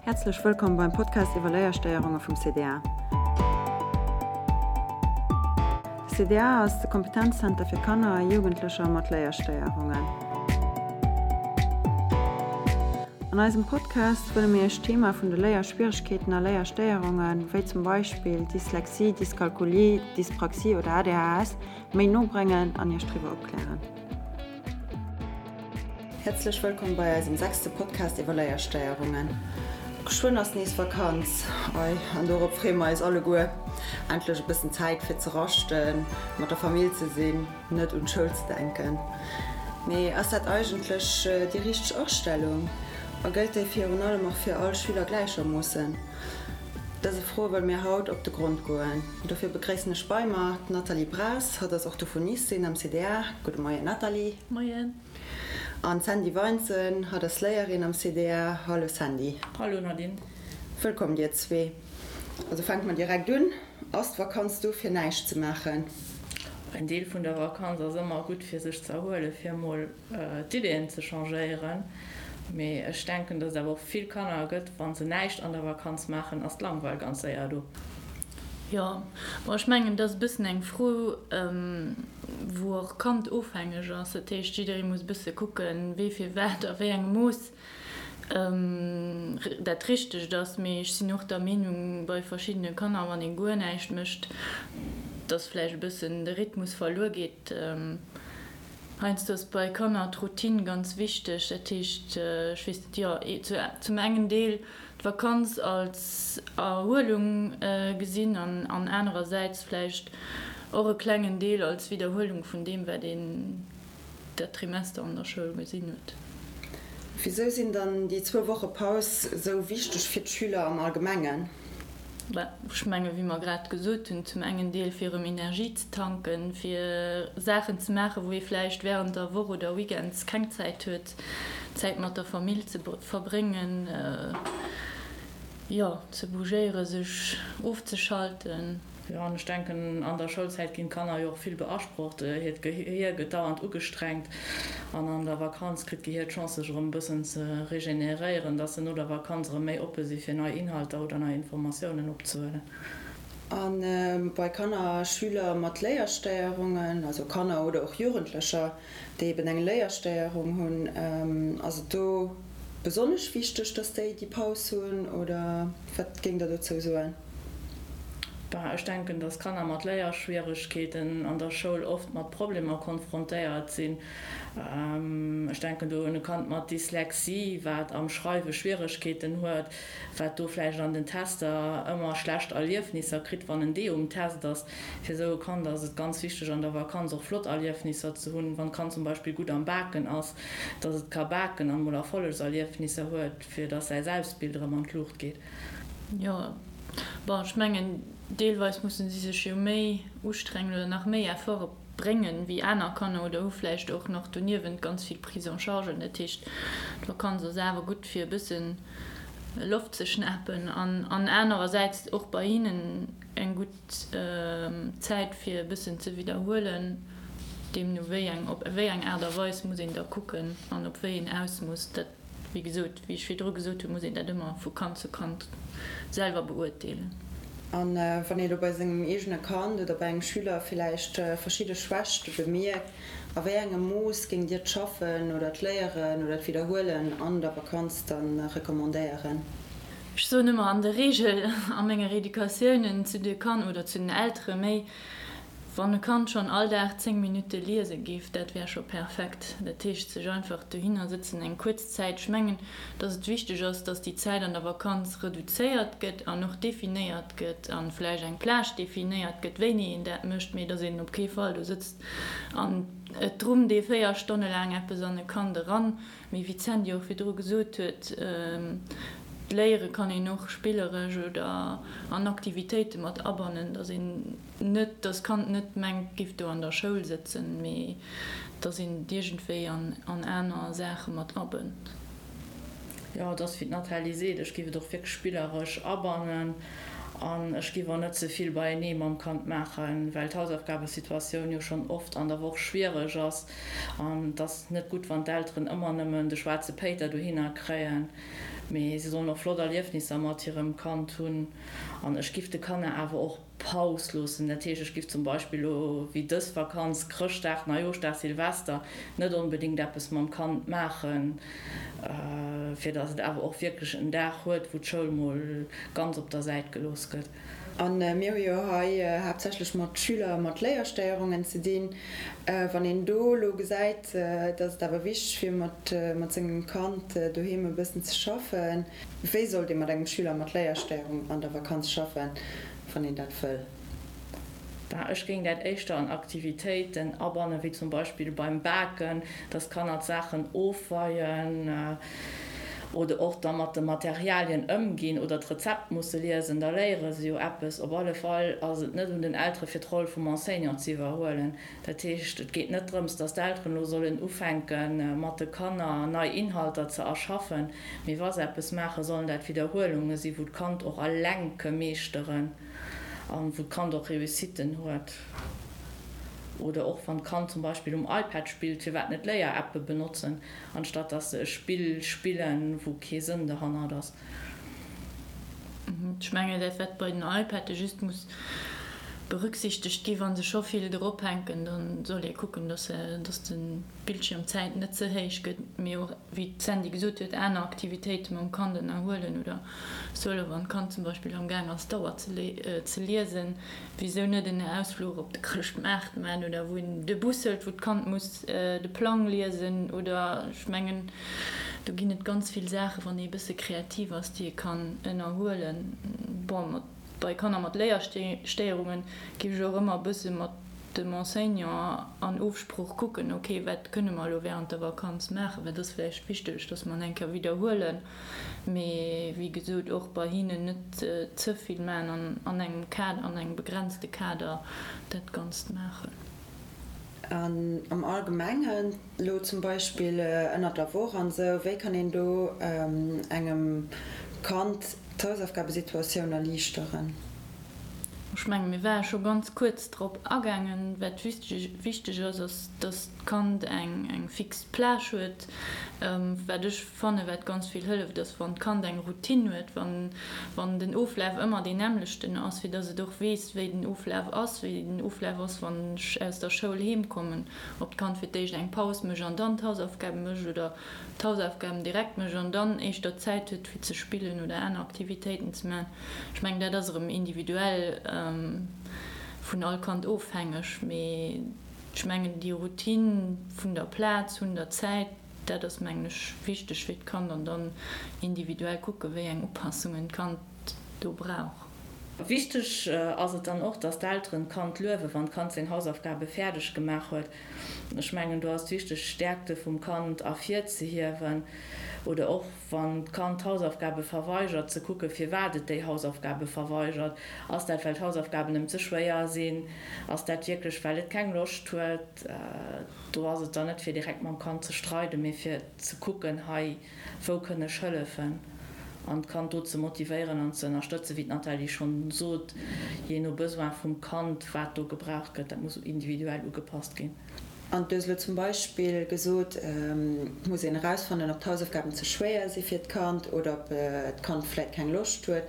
Häerzlech wëllkomm beim Podcast iwwer Léierstéierunge vum CDA. De CDA ass de Kompetenzzenter fir Kanner a Jugendlecher mat Léierstéierungen. An eisem Podcast wëlle mir Iech d'Thema vun de Léierschwieregkeeten a Léierstéierungen, wéi zum Beispill Dyslexie, Dyskalkulie, Dyspraxie oder ADHS, méi no bréngen an Iech driwwer opklären. Häerzlech wëllkomm bei eisem sechste Podcast iwwer Léierstéierungen. Geschwënn ass nees Vakanz, ei, an dorop freeë mer eis alleguer. Endlech e bëssen Zäit fir ze raschten, mat der Famill ze sinn, net un d'Schoul ze denken. Mee ass dat eigentlech déi richteg Astellung? A gëllt déi virun allem och fir all Schüler gläichermoossen? Dëse Froe wëlle mir haut op de Grond goen. Dofir begréissen ech bei mer d'Nathalie Braas, hatt ass Orthophonistin am CDA. Gudde Moien Nathalie. Moien. An d'Sandy Weinzen, hatt ass Léierin am CDA. Hallo Sandy. Hallo Nadine. Wëllkomm dir zwee. Also fänke mer direkt un, Ass d'Vakanz do fir näischt ze maachen? En Deel vun der Vakanz ass ëmmer gutt fir sech ze erhuelen, fir emol d'Ideeën ze changéieren. Mee ech denken, datt et awer och vill Kanner gëtt, wa se näischt an der Vakanz maachen, ass d'Langweil ganz séier do. Jo, bon, ech mengen, dat ass e bëssen eng Fro, wou och kandofhängeg ass. Dat heescht, jidderee muss e bësse kucken, wee fir wat a wéi engem Mooss dat Richtegt ass. Mee ech sinn och der Meenung, bei verschiddene Kanner, wann ee guer näischt mécht, datt vläicht e bëssen de Rhythmus verluer geet. Heiansdo ass bei Kanner d'Routine ganz wichteg. Dat heescht, ech weess net, jo, zum engen Deel d'Vakanz als Erhuelung gesinn an anerersäits vläicht och e klengen Deel als Widderhuelung vun deem, wat een dat Trimester an der Schoul gesinn huet. Wisou sinn dann déi zwou Woche Paus esou wichteg fir d'Schüler am Allgemengen? Ech menge wéi mer grad gesot hunn, zum engen Deel fir erëm Energie ze tanken, fir Saachen ze maachen, wou ee vläicht wärend der Woch oder Weekends keng Zäit huet, Zäit mat der Famill ze verbréngen, jo, ze bougéieren, sech ofzeschalten. Jo, an ech denken, an der Schoulzäit ginn d'Kanner jo och vill beasprocht. Hiert Gehier gëtt dauernd ugestrengt an an der Vakanz kritt d'Gehier d'Chance, sech erëm e bëssen ze regeneréieren, dass se no der Vakanz erëm méi oppe si fir nei Inhalter oder nei Informatiounen opzehuelen. A bei Kanner a Schüler mat Léierstéierungen, also Kanner oder och Jugendlecher, déi eben eng Léierstéierung hunn, ass et do besonnesch wichteg, dass déi déi Paus hunn oder wat géingt Der dozou soen? Ben, ech denken, dass Kanner mat Léierschwieregkeeten an der Schoul oft mat Problemer konfrontéiert sinn. Ech denken do un e Kand mat Dyslexie, wat am Schreiwe Schwieregkeeten huet, wat do vläicht an den Tester ëmmer schlecht Erliefnisser kritt, wann en D um Test ass. Fir esou e Kand ass et ganz wichteg, an der Vakanz och flott Erliefnisser ze hunn, wann d'Kand zum Beispill gutt am Baken ass, dass et ka baken an emol Erfollegserliefnisser huet, fir dass säi Selbstbild erëm an d'Luucht geet. Jo, bon, ech mengen, deelweis musse si sech jo méi ustrengen oder nach méi Efforte bréngen wéi aner Kanner oder hu vläicht och nach doniewent ganz vill Prise en chargen. Dat heescht, d'Vakanz ass awer gutt, fir e bësse Loft ze schnapen an anerersäits och bei hinnen eng gutt Zäit, fir e bëssen ze widderhuelen. Deemno wéi eng, op wéi eng Aart a Weis muss een da kucken an op wéi een Ausmooss dat. Wéi gesot, wéi ech virdru gesot hunn, muss een dat ëmmer vu Kand zu Kand selwer beurteelen. A wann ee lo bei sengem eegene Kand oder bei engem Schüler villäicht verschidde Schwächte bemierkt, a wéi engem Mooss géingt Dir d'Schaffen oder d'Léieren oder d'Widderhuelen an der Vakanz da recommandéieren? Ech soen ëmmer an der Reegel a menge Reeducatiounen zu de Kanner oder zu den Eltere méi, Wann e Kand schonn all Dag 10 Minutte liese géif, dat wär scho perfekt. Dat heescht, sech einfach dohinner sëtzen eng kuerz Zäit. Ech mengen, dass et wichteg ass, dass déi Zäit an der Vakanz reduzéiert gëtt an och definéiert gëtt a vläicht eng Plage definéiert gëtt, wéini een dat mécht, mee dass een op kee Fall do sëtzt an et drummt ee 4 Stonne laang eppes an e Kand eran. Mee wéi d'Sandy och virdru gesot huet, d'Léiere kann een och spilleresch oder an Aktivitéite mat abannen, dass een net, dass d'Kand net mengt, giff do an der Schoul sëtzen, mee dass een et iergendwéi an aner Saache mat abënnt. Jo, et ass wéi d'Nathalie seet, ech giff et och wierklech spilleresch abannen an ech giff och net ze vill beienee mam Kand maachen, well d'Hausaufgabesituatioun jo schonn oft an der Woch schwiereg ass an et ass net gutt, wann d'Elteren ëmmer nëmmen de schwaarze Péiter dohinner kréien. Mee si sollen och flott Erliefnisser mat hirem Kand hunn. An ech giff de Kanner awer och Paus loossen. Dat heescht, ech giff zum Beispill elo wéi dës Vakanz, Chrëschtdag, Neijooschdag, Silvester, net onbedéngt eppes mam Kand maachen, fir datt et awer och wierklech en Dag huet, wou d'Schoul mol ganz op der Säit gelooss gëtt. A mir hu jo hei haaptsächlech mat Schüler mat Léierstéierungen ze dinn. Wann een do elo gesäit, datt et awer wichteg wier, mat sengem Kand doheem e bëssen ze schaffen, wéi sollt ee mat engem Schüler mat Léierstéierung an der Vakanz schaffen, wann een dat wëll? Bah, ech géing dat éischter an Aktivitéiten abannen, wéi zum Beispill beim Baken, dass d'Kanner d'Saachen ofweien oder och da mat de Materialien ëmginn oder d'Rezept musse liesen, da léiere se jo eppes. Op alle Fall ass et net un den Eltere fir d'Roll vum Enseignant ze iwwerhuelen. Dat heescht, et geet net drëms, dass d'Elteren elo sollen ufänke mat de Kanner nei Inhalter ze erschaffen, mee wa se eppes maachen, sollen dat Widderhuelunge sinn, wou d'Kand och eleng ke meeschteren. An wou d'Kand och Réussitten huet. Oder och wann d'Kand zum Beispill um iPad spillt, firwat net Léier-Appe benotzen, anstatt dass se e Spill spillen, wou kee Sënn derhannert ass. Ech mengen, dat wat bei den iPadde just muss berücksichtegt gi, wa se scho vill drop hänken, da soll ee kucken, dass de Bildschirmzäit net ze héich gëtt, mee och, wéi d'Sandy gesot huet, aner Aktivitéite mam Kand ënnerhuelen oder Solo, wann d'Kand zum Beispill am Gaang ass d'Auer ze liesen, wisou net en Ausfluch op de Chrëschtmaart man oder wou een de Bus hëlt, wou d'Kand muss de Plang liesen oder ech mengen do ginn et ganz vill Saachen, wann ee bësse kreativ ass, déi ee kann ënnerhuelen. Bon, mat bei Kanner mat Léierstéierungen géif ech och ëmmer e bësse mat dem Enseignant an Ofsprooch kucken, ok, wat kënne mer elo während der Vakanz maachen, wat ass vläicht wichteg, dass mer en eng Kéier widderhuelen. Mee wéi gesot, och bei hinnen net ze vill maachen an an engem Kader, an engem begrenzte Kader dat Ganzt maachen. An am Allgemengen, elo zum Beispill ënnert der Woch an esou, wéi kann een do engem Kand d'Hausaufgabesituatioun erliichteren? Ech menge mir ware scho ganz kuerz drop agaangen. Wat wichteg ass, ass, dass d'Kand eng fix Plage huet. Wat ech fanne wat ganz vill hëlleft, ass wann d'Kand eng Routine huet, wann den Oflaf ëmmer deen nämmlechten ass, fir dass et och weess, wéi den Oflaf ass, wéi den Oflaf ass, wann ech aus der Schoul heem kommen, ob d'Kand fir d'éischt eng Paus mécht an dann d'Hausaufgabe mécht oder d'Hausaufgaben direkt mécht an dann éischter Zäit huet fir ze spillen oder aner Aktivitéiten ze maachen. Ech mengen dat ass erëm individuell vun all Kand ofhängeg, mee ech mengen déi Routine vun der Plaz, vun der Zäit, dat ass mengen ech wichteg fir d'Kand an dann individuell kucke wéi eng Upassungen d'Kand do brauch. Wichteg ass et dann och, dass d'Elteren d'Kand luewen, wann d'Kand seng Hausaufgabe fäerdeg gemaach huet. Ech mengen, do ass et wichteg, d'Stäerkte vum Kand ervirzehiewen oder och, wann d'Kand d'Hausaufgabe verweigert, ze kucken, firwat et déi Hausaufgabe verweigert. Ass dat, well d'Hausaufgaben em ze schwéier sinn? Ass dat wierklech, well et keng Loscht huet? Do ass et dann net, fir direkt mam Kand ze streiden, mee fir ze kucken, hei, wou kënn ech hëllefen? An d'Kand do ze motivéieren an ze ënnerstëtzen, wéi d'Nathalie schonn sot, jee no Besoin vum Kand, wat do gebraucht gëtt, dat muss individuell ugepasst ginn. An du hues elo zum Beispill gesot, et muss een erausfannen, ob d'Hausaufgaben ze schwéier si fir d'Kand oder ob d'Kand vläit keng Loscht huet.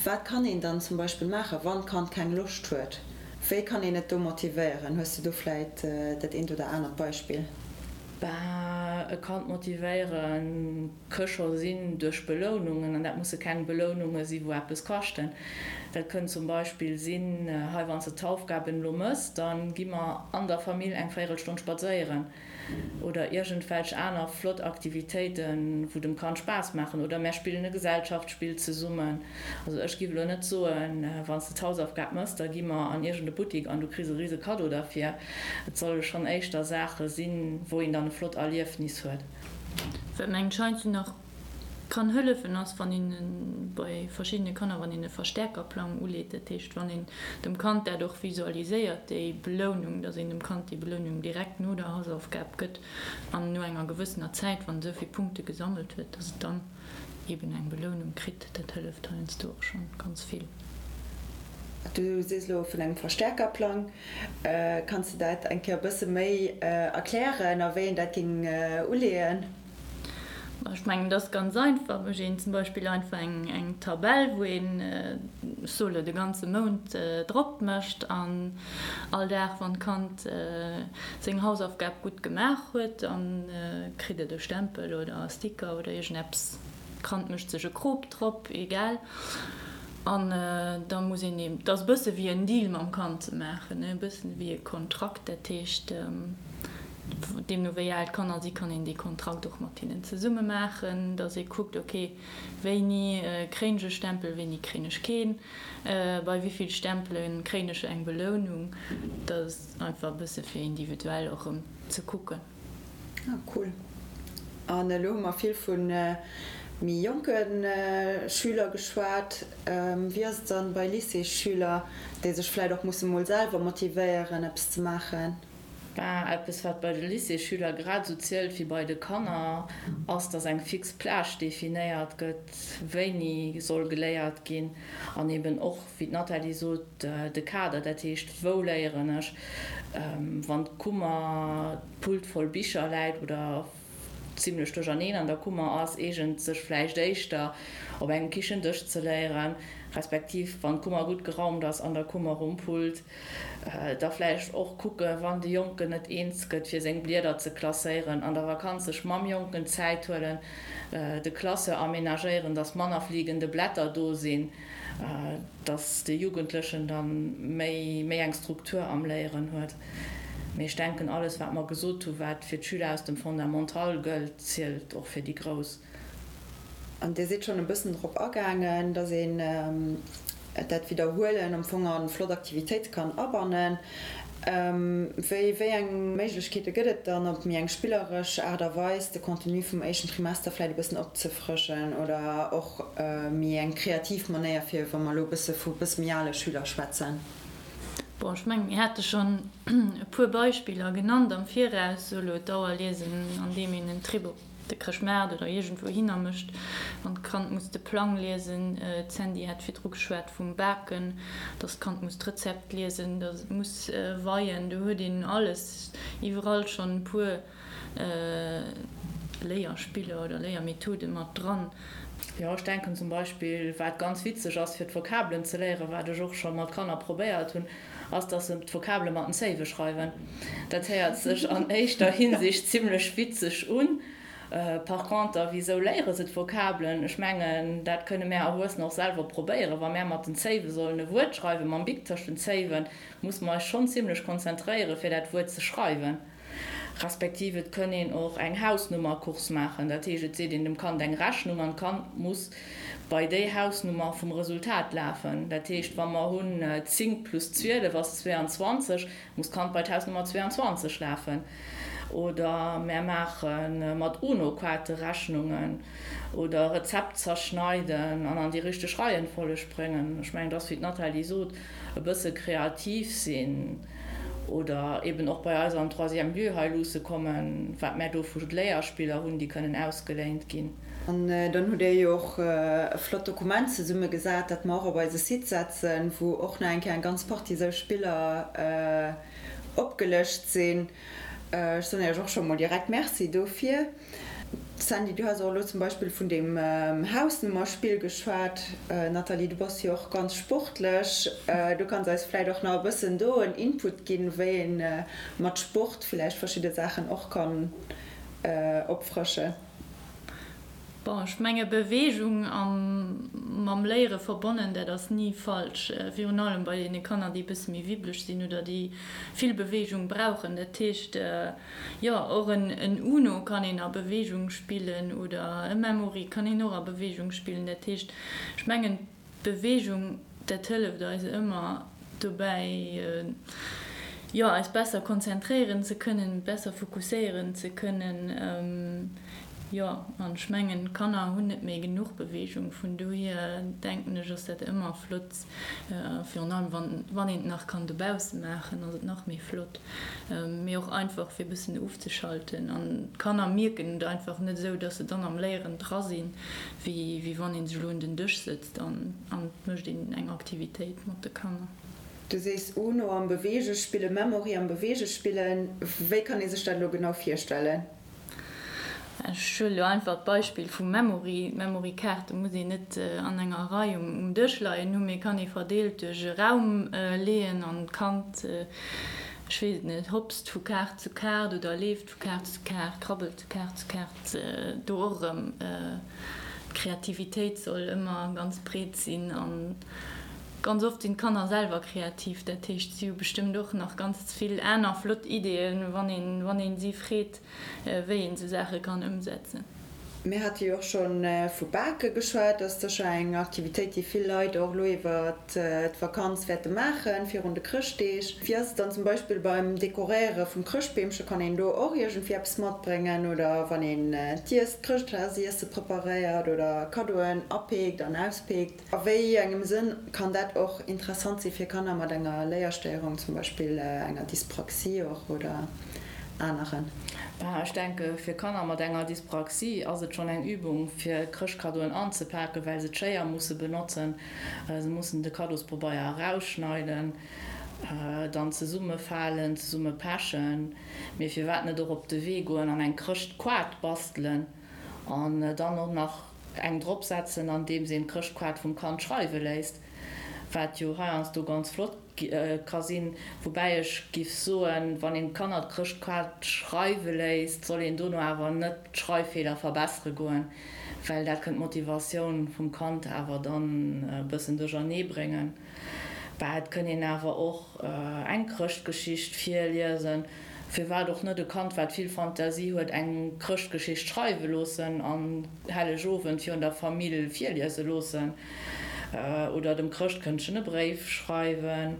Wat kann een dann zum Beispill maachen, wann d'Kand keng Loscht huet? Wéi kann een et do motivéieren? Hues de do vläit dat eent oder anert Beispill? Bah, e Kand motivéieren ke scho sinn duerch Belounungen, an dat musse keng Beloununge si wou eppes kaschten. Dat kënnt zum Beispill sinn, hei wann s de d'Haufgaben elo mëss, da gi mer an der Famill eng Véierelstonn spadséieren oder iergendwelch aner flott Aktivitéiten, wou dem Kand Spaass maachen oder mär spillen e Gesellschaftsspill zesummen. Also ech giff elo net soen, wann s de d'Hausaufgab mëss, da gi mer an iergend e Buttik an du kriss e rise Kaddo derfir. Et solle schonn éischter Saache sinn, wou een dann e flott Erliefnis huet. Wat mengen ech heiansdo nach kann hëllefen ass, wann een bei verschiddene Kanner, wann een e Verstärkerplang uleet, dat heescht wann een dem Kand dat och visualiséiert, déi Belounung, dass een dem Kand déi Belounung direkt no der Hausaufgab gëtt an no enger gewëssener Zäit, wann et esou vill Punkte gesammelt huet, dass et dann eben eng Belounung kritt, dat hëlleft heiansdo och schonn ganz vill. Du sees elo vun engem Verstärkerplang. Kanns de dat eng Kéier e bësse méi erklären a wéi een dat géing uleeën? Ech mengen, dat ass ganz einfach. Mécht een zum Beispill einfach eng Tabell, wou een, ech soe lo, de ganze Mount drop mécht an all Dag, wann d'Kand seng Hausaufgab gutt gemaach huet, da kritt et e Stempel oder e Sticker oder iergendeppes. D'Kand mécht sech e Krop drop, egal. An da muss een eben, et ass e bësse wéi en Deal mam Kand ze maachen, e bëssen wéi e Kontrakt. Dat heescht, deemno wéi al d'Kanner si kann een dee Kontrakt och mat hinnen zesumme maachen, datt ee kuckt, ok, wéini kréien ech e Stempel, wéini kréien ech keen, bei wéi vill Stempele kréien ech eng Belounung. Dat ass einfach e bësse fir individuell och erëm ze kucken. Ah cool. An elo hu mer vill vu méi jonke Schüler geschwat. Wéi ass et dann bei Lycéesschüler, déi sech vläit och musse mol selwer motivéieren eppes ze maachen? Ben, eppes wat bei de Lycéesschüler grad esou zielt wéi bei de Kanner, ass, dass eng fix Plage definéiert gëtt, wéini soll geléiert ginn an eben och, wéi d'Nathalie sot, de Kader, dat heescht, wou léieren ech, wann d'Kummer, d'Pult voll Bicher läit oder zimlech duercherneen an der Kummer ass, eegent sech vläicht éischter op engem Kichendësch ze léieren, respektiv wann d'Kummer gutt geraumt ass an der Kummer um Pult, da vläicht och kucke wann de Jonken net eens gëtt fir seng Blieder ze klasséieren, an der Vakanz sech mam Jonken Zäit huelen, de Classeur aménagéieren, dass manner fliegende Blätter do sinn, dass de Jugendlechen da méi méi eng Struktur am Léieren huet. Mee ech denken, alles wat mer gesot hu wat fir d'Schüler aus dem Fondamental gëllt, zielt och fir déi Grouss. An Dir sidd schonn e bëssen drop agaangen, dass een dat Widderhuelen am Fong a flott Aktivitéite kann abannen. Wéi wéi eng Méiglechkeete gëtt et dann, op méi eng spilleresch Aart a Weis de Contenu vum éischten Trimester vläicht e bëssen opzefrëschen oder och méi eng kreativ Manéier, fir wa mer elo e bësse vu bësse méi ale Schüler schwätzen? Bon, ech mengen, mir hate schonn e puer Beispiller genannt am Viraus, sou elo d'Auerliesen, andeem een en Trip op de Chrëschtmaart oder iergendwou hinner mécht, wann d'Kand muss de Plang liesen. D'Sandy hat virdru geschwat vum Baken, dass d'Kand muss d'Rezept liesen, dass et muss weien. Do huet een alles iwwerall schonn e puer Léierspiller oder Léiermethode mat dran. Jo, ech denken zum Beispill, wat ganz witzeg ass fir d'Vokabelen ze léieren, wat ech och scho mat Kanner probéiert hunn, ass, dass se d'Vokabele mat den Zéiwe schreiwen. Dat héiert sech an éischter Hinsicht zimlech witzeg un. Par conter, wisou léiere se d'Vokabelen? Ech mengen, dat kënne mär Erwuessener och selwer probéieren. Wa mär mat den Zéiwe sollen e Wuert schreiwen, mam Bic tëscht den Zéiwen, musse mer eis schonn zimlech konzentréieren, fir dat Wuert ze schreiwen. Respektiv et kënn een och eng Hausnummercourse maachen. Dat heescht, et seet een dem Kand eng Rechnung an d'Kand muss bei déi Hausnummer vum Resultat lafen. Dat heescht, wa mer hunn 10 plus 12 ass 22, muss d'Kand bei d'Hausnummer 22 lafen. Oder mär maache mat UNO-Kaarte Rechnungen oder Rezept zerschneiden an an déi richteg Reihenfolleg bréngen. Ech mengen, et ass, wéi d'Nathalie sot, e bësse kreativ sinn oder eben och bei eis am Troisième lieu hei luusse kommen, wat mär do vu Léierspiller hunn, déi kënnen ausgeléint ginn. An dann hutt Dir jo och e flott Dokument zesummegesat, dat mer och op eise Site setzen, wou och nach eng Kéier eng ganz Partie esou Spiller opgelëscht sinn. Ech soen Iech och scho mol direkt Merci dofir. Sandy, du has och elo zum Beispill vun deem Hausnummerspill geschwat. Nathalie, du bass jo och ganz sportlech. Du kanns eis vläicht och nach e bëssen do en Input ginn, wéi ee mat Sport vläicht verschidde Saachen och kann opfrëschen. Bon, ech menge Beweegung a mam Léiere verbonnen, dat ass ni falsch. Virun allem bei deene Kanner, déi e bësse méi wibbeleg sinn oder déi vill Beweegung brauchen. Dat heescht, jo, och en Uno kann een a Beweegung spillen oder e Memory kann een och a Beweegung spillen. Dat heescht, ech mengen, D'Beweegung, dat hëlleft eis ëmmer dobäi, jo, eis besser konzentréieren ze kënnen, besser fokusséieren ze kënnen. Jo, an ech mengen, d'Kanner hunn net méi genuch Beweegung, vun dohier denken ech, ass dat ëmmer flott, virun allem wann, wann een et nach kann dobausse maachen, ass et nach méi flott, mee och einfach fir e bëssen ofzeschalten. An d'Kanner mierken et einfach net esou, dass se dann am Léieren dra sinn. Wéi wann een sech elo un den Dësch sëtzt an et mécht een eng Aktivitéit mat de Kanner. Du sees Uno am Beweege spillen, Memory am Beweege spillen. Wéi kann ee sech dat elo genau virstellen? Ech huele lo einfach d'Beispill vum Memory. D'Memory-Kaarte muss een net an enger Rei um Dësch leien hunn, mee kann ee verdeelt duerch e Raum leeën an d'Kand, ech weess et net, hopst vu Kaart zu Kaart oder leeft vu Kaart zu Kaart, krabbelt vu Kaart zu Kaart. Do och erëm, d'Kreativitéit soll ëmmer ganz breet sinn an ganz oft sinn d'Kanner selwer kreativ. Dat heescht, si hu bestëmmt och nach ganz vill aner flott Ideeën, wann een, wann een si freet. wéi een esou Saache kann ëmsetzen. Mir hate jo och scho vu Bake geschwat. Dat ass sécher eng Aktivitéit, déi vill Leit och elo iwwer d'Vakanz wäerte maachen, virun de Chrëschtdeeg. Wéi ass et dann zum Beispill beim Dekoréiere vum Chrëschtbeemche? Kann een do och iergendwéi eppes matbréngen? Oder wann een d'Iess, d'Chrëschtdagsiesse preparéiert oder Kaddoen apeekt an auspeekt? A wéi engem Sënn kann dat och interessant si fir Kanner mat enger Léierstéierung, zum Beispill enger Dyspraxie och oder aneren? Bah, ech denke fir Kanner mat enger Dyspraxie ass et schonn eng Übung fir Chrëschtkaddoen anzepaken, well se d'Schéier musse benotzen. Se mussen de Kaddospobeier erausschneiden, dann zesummefalen, zesumme pechen. Mee firwat net och op de Wee goen an eng Chrëschtkoart bastelen an dann och nach eng drop setzen andeems een d'Chrëschtkaart vum Kand schreiwe léisst, wat jo heiansdo ganz flott ka sinn. Woubäi ech giff soen, wann een d'Kanner d'Chrëschtkaart schreiwe léisst, soll een dono awer net d'Schreiffeeler verbessere goen, well dat kënnt d'Motivatioun vum Kand awer dann e bëssen duerchernee bréngen. Bah, et kënn een awer och eng Chrëschtgeschicht virliesen. Firwat och net e Kand, wat vill Fantasie huet, eng Chrëschtgeschicht schreiwe loossen an Hellegowend virun der Famill virliese loossen? Oder dem Chrëschtkëndchen e Bréif schreiwen?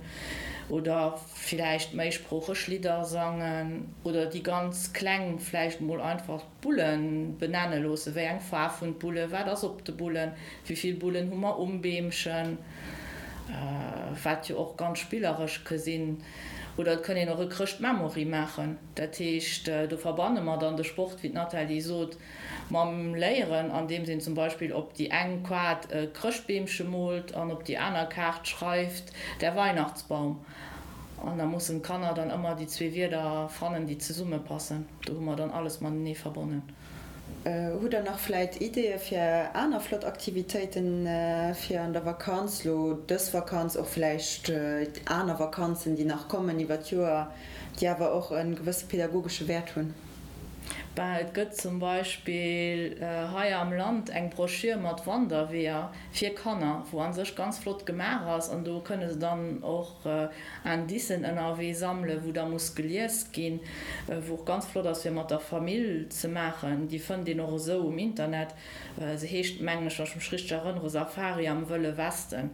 Oder villäicht méisproocheg Lidder sangen? Oder déi ganz Kleng vläicht mol einfach d'Bullen benenne loossen, Wéi eng Faarf hunn d'Bullen? Wat ass op de Bullen? Wéi vill Bullen hu mer um Beemchen? Wat jo och ganz spilleresch ke sinn. Oder et kënn een och e Chrëscht-Memory maachen. Dat heescht, do verbanne mer dann de Sport, wéi d'Nathalie sot, mam Léieren, andeems een zum Beispill op déi eng Kaart e Chrëschtbeemche moolt an op déi aner Kaart schreift, Der Weihnachtsbaum. An da mussen d'Kanner dann ëmmer déi zwee Wierder fannen, déi zesummepassen. Do hu mer dann alles matenee verbonnen. Hutt der nach vläit Ideeë fir aner flott Aktivitéiten fir an der Vakanz, lo dës Vakanz, och vläicht aner Vakanzen, déi nach kommen iwwer d'Joer, déi awer och e gewësse pedagogesche Wäert hunn? Ben, et gëtt zum Beispill hei am Land eng Broschür mat Wanderweeër fir Kanner, wou a sech ganz flott gemaach ass an do kënne se dann och Indicen ënnerwee sammelen, wou da muss gelies ginn, wou och ganz flott ass fir mat der Famill ze maachen. Déi fënnt een och esou um Internet. Se heescht, mengen ech, wann ech mech richteg erënnere, Safari am Wëlle Westen.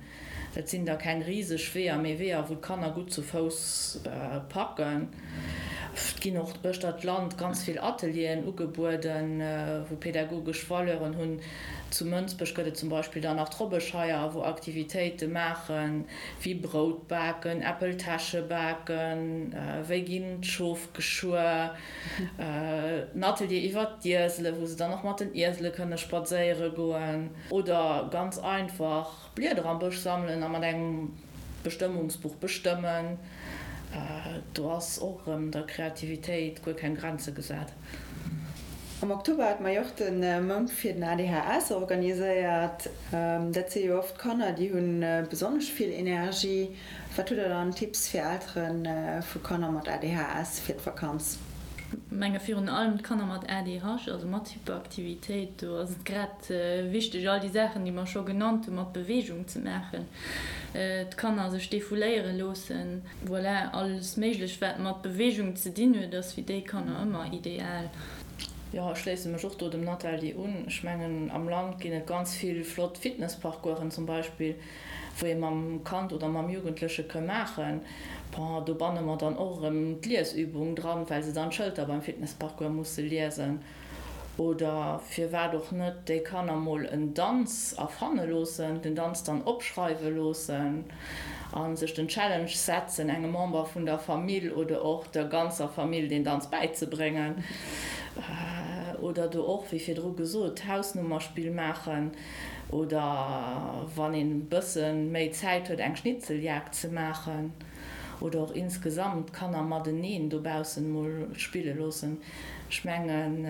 Dat sinn da keng riseg Weeër, mee Weeër, wou d'Kanner gutt zu Fouss packen. Et ginn och uechter d'Land ganz vill Atelieren ugebueden, wou pädagogesch Valeuren hunn. Zu Mënsbech gëtt et zum Beispill dann nach d'Robbescheier, wou Aktivitéite maachen, wéi Brout baken, Äppeltäsche baken, wéi ginn d'Schof geschuer, en Atelier iwwert d'Iesele, wou se dann och mat den Iesele kënne spadséiere goen oder ganz einfach Blieder am Bësch sammelen a mat engem Bestëmmungsbuch bestëmmen. Do ass och erëm der Kreativitéit guer keng Grenze gesat. Am Oktober hat mer jo och de Mount fir den ADHS organiséiert. Dat si jo oft Kanner, déi hu besonnesch vill Energie. Wat hutt der dann Tipps fir Eltere vu Kanner mat ADHS fir d'Vakanz? Menge virun allem d'Kanner mat ADH, also mat Hyperaktivitéit, do ass et grad wichteg all déi Saachen, déi mer scho genannt hunn, mat Beweegung ze maachen, d'Kanner sech defouléiere loossen. Voilà, alles Méiglech wat mat Beweegung ze dinn huet, ass fir déi Kanner ëmmer ideal. Jo, ech schléisse mech och do dem Nathalie un. Ech mengen, am Land ginn et ganz vill flott Fitnessparcoursen zum Beispill, wou ee mam Kand oder mam Jugendleche ke maachen. Bon, do banne mer dann och erëm d'Liesübung dran, well se dann d'Schëlter beim Fitnessparcours musse liesen. Oder firwat och net déi Kanner mol en Danz erfanne loossen, den Danz dann opschreiwe loossen a sech den Challenge setzen, engem Member vun der Famill oder och der ganzer Famill deen Danz bäizebréngen. Oder do och, wéi virdru gesot, d'Hausnummerspill maachen oder wann een e bësse méi Zäit huet, eng Schnitzeljagd ze maachen. Oder och insgesamt d'Kanner mateneen dobaussen mol spille loossen. Ech mengen,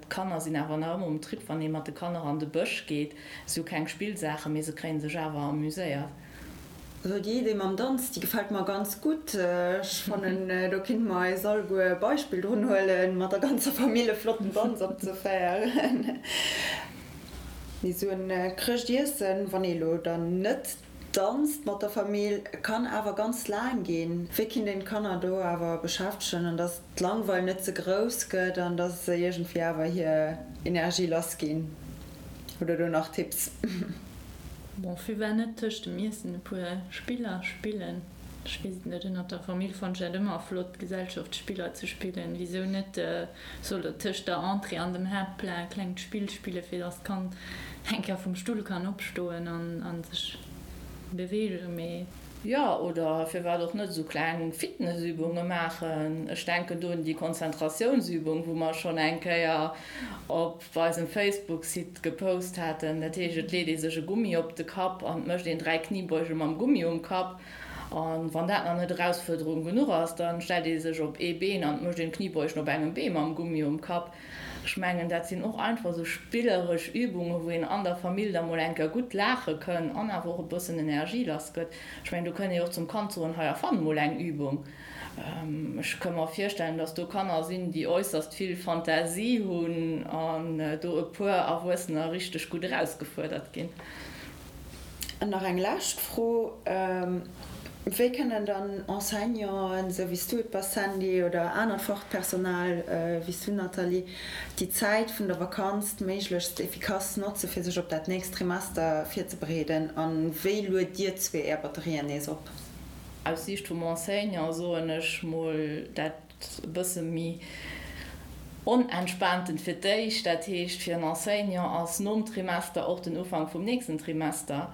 d'Kanner sinn awer nach ëmmer um Trip, wann ee mat de Kanner an de Bësch geet. Si hu keng Spillsaachen, mee se kréie sech awer amuséiert. Also déi Idee mam Danz, déi gefält mer ganz gutt. Ech fannen, do kinnte mer eis alleguer e Beispill drun huelen, mat der ganzer Famill e flotten Danz opzeféieren. Mee esou en Chrëschtiessen, wann ee lo dann net danzt mat der Famill, kann awer ganz laang ginn. Wéi kinnt een d'Kanner do awer beschäftegen, an dass d'Langweil net ze grouss gëtt an dass se iergendwéi awer hir Energie lass ginn? Hutt der do nach Tipps? Bon, firwat net tëscht dem Iessen e puer Spiller spillen? Ech weess et net, ënnert der Famill fannt ech dat ëmmer flott, Gesellschaftsspiller ze spillen. Wisou net soll der tëscht der Entrée an dem Haaptplat e klengt Spill spillen, fir dass d'Kand eng Kéier vum Stull kann opstoen an sech beweegen, mee. Jo, oder firwat och net esou kleng Fitnessübunge maachen? Ech denken do un déi Konzentratiounsübung, wou mer schonn eng Kéier op eisem Facebook-Site gepost haten. Dat heescht, et leet ee sech e Gummi op de Kapp an et mécht een 3 Kniebeuge mam Gummi um Kapp. A wann dat nach net Erausfuerderung genuch ass, da stellt ee sech op ee Been an et mécht een Kniebeugen op engem Bee mam Gummi um Kapp. Ech mengen, dat sinn och einfach esou spilleresch Übungen, wou een an der Famill da mol eng Kéier gutt laache kënn an awer och e bëssen Energie lass gëtt. Ech mengen, do kënnt ee och zum Kand soen, Hei, erfann mol eng Übung. Ech ka mer virstellen, dass do Kanner sinn, déi äusserst vill Fantasie hunn an do e puer Erwuessener richteg gutt erausgefuerdert ginn. An nach eng lescht Fro, Wéi kënnen dann Enseignanten, esou wéi s du et bass Sandy, oder anert Fachpersonal, wéi s du Nathalie, déi Zäit vun der Vakanz méiglechst efficace notze fir sech op dat nächst Trimester virzebereeden? A wéi luet dir zwee är Batterien nees op? Aus Siicht vum Enseignant soen ech mol dat e bësse méi onentspaanten fir d'éischt. Dat heescht, fir en Enseignant ass nom Trimester och den Ufank vum nächsten Trimester.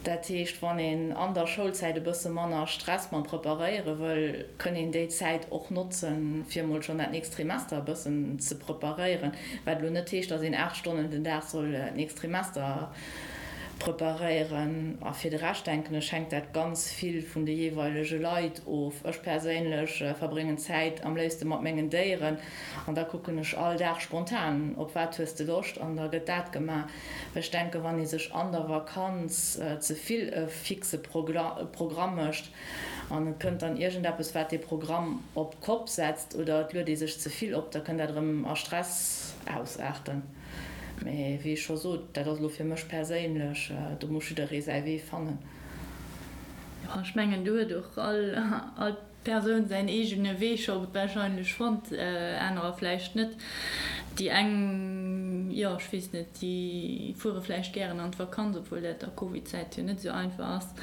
Dat heescht, wann een an der Schoulzäit e bësse manner Stress mam Preparéiere wëll, kënn een déi Zäit och notzen, fir emol schonn dat nächst Trimester e bëssen ze preparéieren. Wat elo net heescht, datt een 8 Stonnen den Dag soll d'nächst Trimester preparéieren. A fir de Rescht, denken ech, hänkt dat ganz vill vun de jeeweilege Leit of. Ech perséinlech verbréngen Zäit am léifste mat mengen Déieren an da kucken ech all Dag spontan, op wat hues de Loscht an da gëtt dat gemaach. Ech denken, wann ee sech an der Vakanz ze vill e fixe Programm mécht an et kënnt dann iergendeppes, wat dee Programm op d'Kopp setzt oder et luet ee sech ze vill op, da kënnt dat erëm a Stress ausaarten. Mee wéi ech scho sot, dat ass elo fir mech perséinlech, do muss jidderee säi Wee fannen. Jo, ech mengen do huet och all Persoun säin eegene Wee scho warscheinlech fonnt, anerer vläicht net. Déi eng, jo ech weess net, déi fuere vläicht gären an d'Vakanz, obwuel dat a Covid-Zäit jo net esou einfach ass.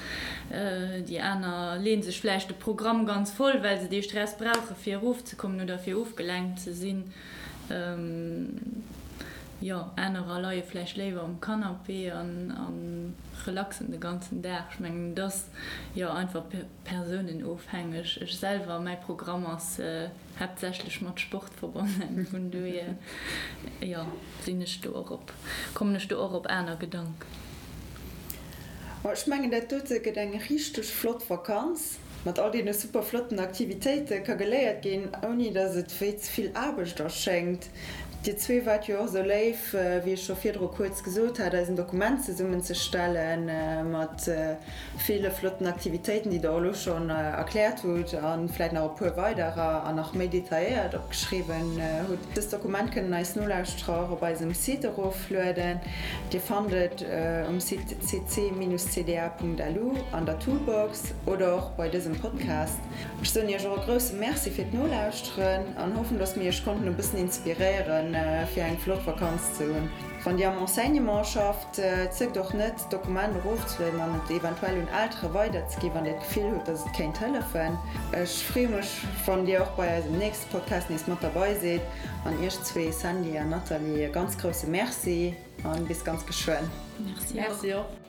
Déi aner leeën sech vläicht de Programm ganz voll, well se dee Stress brauche fir erofzekommen oder fir ofgelenkt ze sinn. Jo, anerer leie vläicht léiwer um Canapé an relaxen de ganzen Dag. Ech mengen, et ass jo einfach persounenofhängeg. Ech selwer, mäi Programm ass haaptsächlech mat Sport verbonnen, vun dohier, jo, sinn ech do och op, kommen ech do och op aner Gedanken. Ech mengen, dat dote gëtt eng richteg flott Vakanz. Mat all deene super flotten Aktivitéite ka geléiert ginn, ouni dass et wéi ze vill Aarbecht erschéngt. Dir zwee waart jo och esou léif, wéi ech scho virdru kuerz gesot hat, eis en Dokument zesummen ze stelle mat ville flotten Aktivitéiten, déi der och elo schonn erkläert hutt a vläit nach e puer weiderer an nach méi detailléiert opgeschriwwen hutt. Dëst Dokument kënnen eis Nolauschterer och op eisem Site eroflueden. Dir fannt et um Site cc-cda.lu an der Toolbox. Oder och bei dësem Podcast. Ech soen iech och e grousse Merci fir d'Nolauschteren an hoffen, dass mir iech konnten e bëssen inspiréieren, fir eng flott Vakanz ze hunn. Wann Dir am Enseignement schafft, zéckt och net, d'Dokument erofzelueden an et eventuell un Eltere weiderzeginn, wann Dir d'Gefill hutt, dass et kéint hëllefen. Ech freeë mech, wann Dir och bei eisem nächste Podcast nees mat derbei sidd. An iech zwee, Sandy an Nathalie, e ganz grousse Merci a bis ganz geschwënn. Merci och.